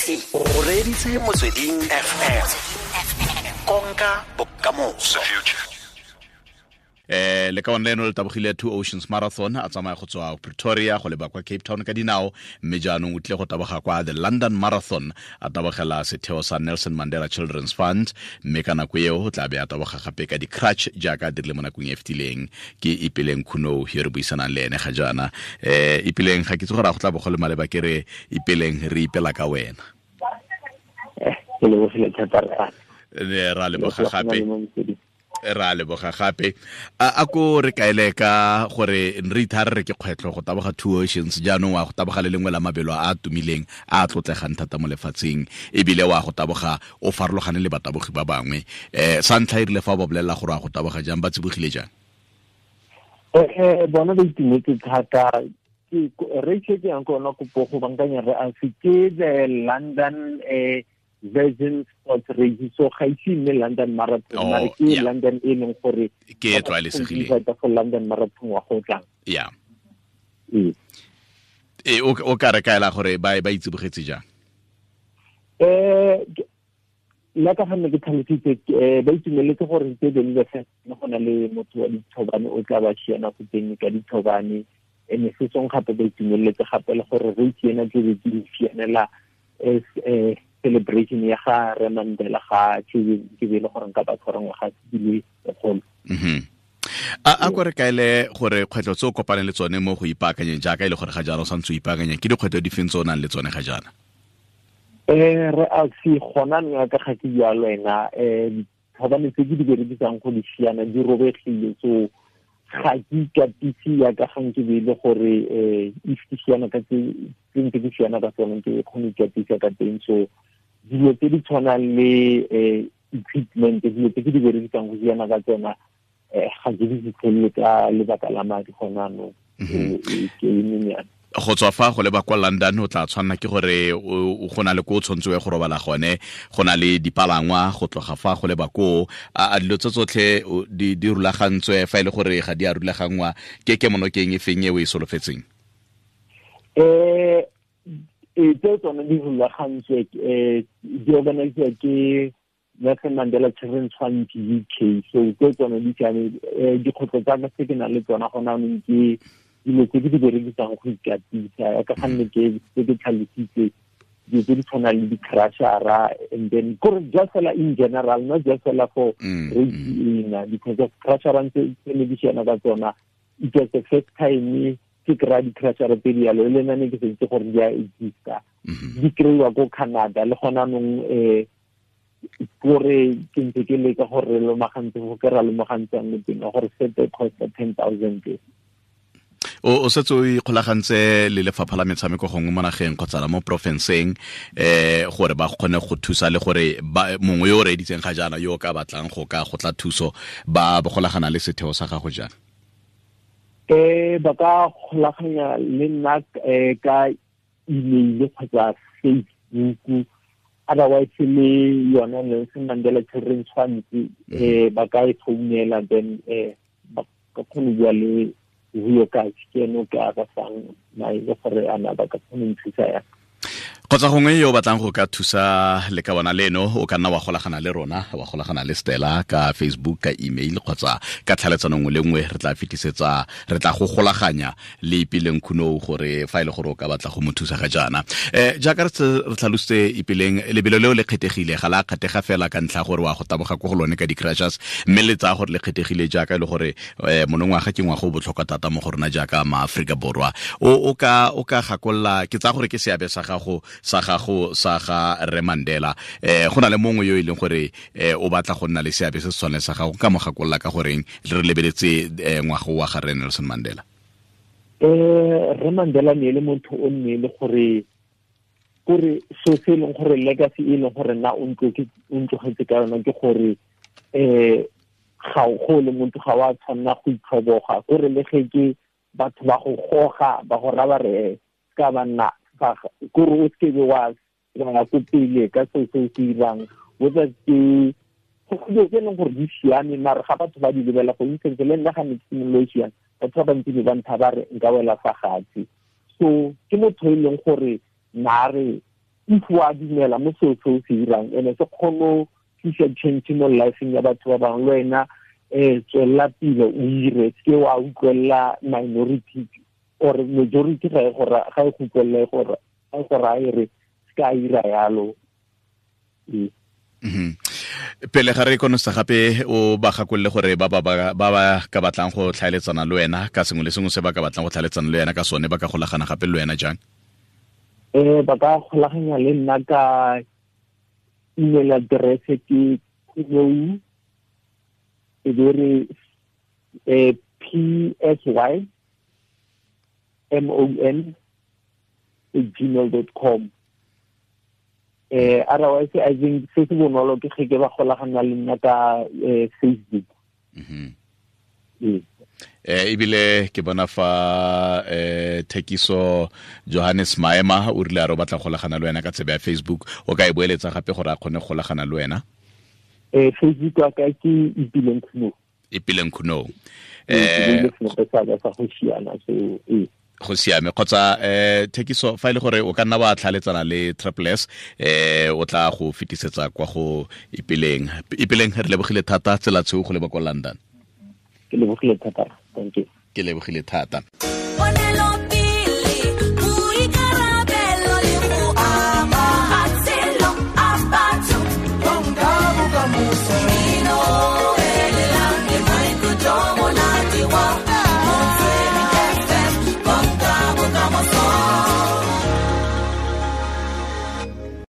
O reditse Motsweding FM, konka bokamoso. Le ka one leno le tabogile Two Oceans Marathon, a tsamaya go tswa Pretoria go leba kwa Cape Town ka dinao, mme jaanong o tlile go taboga kwa the London Marathon, a tabogela setheo sa Nelson Mandela Children's Fund, mme ka nako eo o tla be a taboga gape ka di-crutch jaaka a dirile mo nakong e fetileng. Ke Ipeleng Khunou yo re buisanang le ene ga jaana. Ipeleng, ga ke itse gore a go tla bo go le maleba ke re Ipeleng re ipela ka wena. Ke lebogile thata re. Ra leboga gape. Ra leboga gape. A ko re kaele ka gore re ithare re ke kgwetlho go taboga Two Oceans, jaanong wa go taboga le lengwe la mabelo a a tumileng a a tlotlegang thata mo lefatsheng, ebile wa go taboga o farologane le batabogi ba bangwe. Sa ntlha e rile fa ba bolelela gore wa go taboga jang, ba tsibogile jang? Bona ba itumetse thata. Re ke yang ko ona kopo go bankanya re a se ke the London Virgin Sports Race, so ga ise nne London Marathon, mare ke London e leng gore ke e tlwaelesegileng go London Marathon wa go tlang. O ka re kaela gore ba itsibogetse jang? Nna ka gonne ke tlhalositse, ba itumeletse gore tse dingwe le go na le motho wa dithobane o tla ba siana go teng ka dithobane, ene se song gape ba itumeletse gape le gore re itsena ke be ke sianela as celebration ya ga Re Mandela ga ke be le gore nka ba tshwara ngwaga di le lekgolo. A ko re kaele gore kgwetlho tse o kopaneng le tsone mo go ipaakanyeng, jaaka e le gore ga jaana o santse o ipaakanya, ke dikgwetlho di feng tse o nang le tsone ga jaana? Re a se gona nna ka ga ke bua le wena, dithobane tse ke di berekisang go di siana di robegile, so ga ke ikatise yaka ga nke be e le gore if ke siana ka tse ntse ke siana ka tsone ke kgone go ikatisa ka teng. So dilo tse di tshwanang le equipment, dilo tse ke di berekisang go siana ka tsona, ga ke di fitlhelele ka lebaka la madi gona anong. Ke e. Go tswa fa go leba kwa London o tla tshwanela ke gore o go na le ko o tshwanetse o ye go robala gone, go na le dipalangwa go tloga fa go leba koo. A dilo tse tsotlhe di rulagantswe? Fa e le gore ga di a rulaganngwa, ke kemonokeng e feng e o e solofetseng? Tse tsone di rulagantswe, di organisiwa ke Nelson Mandela Children's Fund UK, so tse tsone di siame. Dikgwetlho tsa ka tse ke nang le tsona gona anong ke dilo tse ke di berekisang go ikatisa, ka gonne ke tse ke tlhalositse dilo tse di tshwanang le di-crashara, and then kore just fela in general, not just fela for race ena, because of crashara tse ne di siana ka tsona, it was the first time ke kry-a di-crashara tse di yalo, le nna ne ke sa itse gore di a exista. Di kry-iwa ko Canada le gona anong, kore ke ntse ke leka gore re lomagantse go ke ra lomagantsang le teng gore sete costa 10,000. O setse o ikgolagantse le lefapha la metshameko gongwe mo nageng kgotsa la mo porofenseng, gore ba kgone go thusa, le gore mongwe yo o reeditseng ga jaana yo o ka batlang go ka go tla thuso, ba golagana le setheo sa gago jang? Ba ka golaganya le nna ka email kgotsa Facebook, otherwise le yone Nelson Mandela Children's Fund, ba ka e founela, then ba ka kgone go bua le Vuyo Kachi, ke ene o ka ba fang maele gore a na ba ka kgona go nthusa yang. Kgotsa gongwe yo o batlang go ka thusa le ka bona leno, o ka nna wa golagana le rona, wa golagana le Stella ka Facebook, ka email kgotsa ka tlhaeletsano nngwe le nngwe. Re tla fetisetsa, re tla go golaganya le Ipeleng Khunou gore fa e le gore o ka batla go mo thusa ga jaana. Jaaka re tlhalositse Ipeleng, lebelo leo le kgethegile, ga la kgethega fela ka ntlha gore wa go taboga ko go lone ka di-crashers, mme le tsaya gore le kgethegile jaaka e le gore monongwaga ke ngwaga o botlhokwa thata mo go rona jaaka maAforika Borwa. O ka gakolola, ke tsaya gore ke seabe sa gago sa ga Re Mandela. Go na le mongwe yo e leng gore o batla go nna le seabe se se tshwaneng sa gago, ka mo gakolola ka goreng re lebeletse ngwaga wa ga Re Nelson Mandela? Re Mandela ne le motho o nne le gore kore so se leng gore legacy e leng gore nna o ntlogetse ka yona ke gore ga go le motho ga wa tshwanna go itlhoboga, kore le ge ke batho ba go goga ba go raba re ka ba nna kore o seke wa ya ko pele ka seo se o se dirang, whether ke dilo tse e leng gore di siame, mare ga batho ba di lebela go instance le nna ga ne ke simololo e siame, batho ba bantsi ba ntha ba re nka wela fa gatse. So ke motho e leng gore nna re If wa dumela mo seo se o se dirang ene se kgone tlisa change mo lifeng ya batho ba bangwe, le wena tswelela pele o ire, se wa utlwelela minority or majority ga e go ga e go utlwelela gore ga e go raya re se ka ira yalo. Pele ga re konosa gape, o ba gakolole gore ba ba ka batlang go tlhaeletsana le wena ka sengwe le sengwe se ba ka batlang go tlhaeletsana le wena ka sone, ba ka golagana gape le wena jang? Ba ka golaganya le nna ka email address ke khunou e be re psymon@gmail.com. Otherwise I think se se bonolo ke ge ke ba golagana le nna ka Facebook. Ebile ke bona fa Thekiso Johannes Maema o rile a re o batla golagana le wena ka tsebe ya Facebook, o ka e boeletsa gape gore a kgone go golagana le wena? Facebook wa ka ke Ipileng Khunou. Ipileng Khunou. Go siame. Kgotsa Thekiso, fa ile gore o ka nna wa tlhaletsana le Triple S, o tla go fetisetsa kwa go Ipileng. Ipileng, re lebogile thata, tsela tshweu go leba kwa London. Ke lebogile thata, thank you. Ke lebogile thata.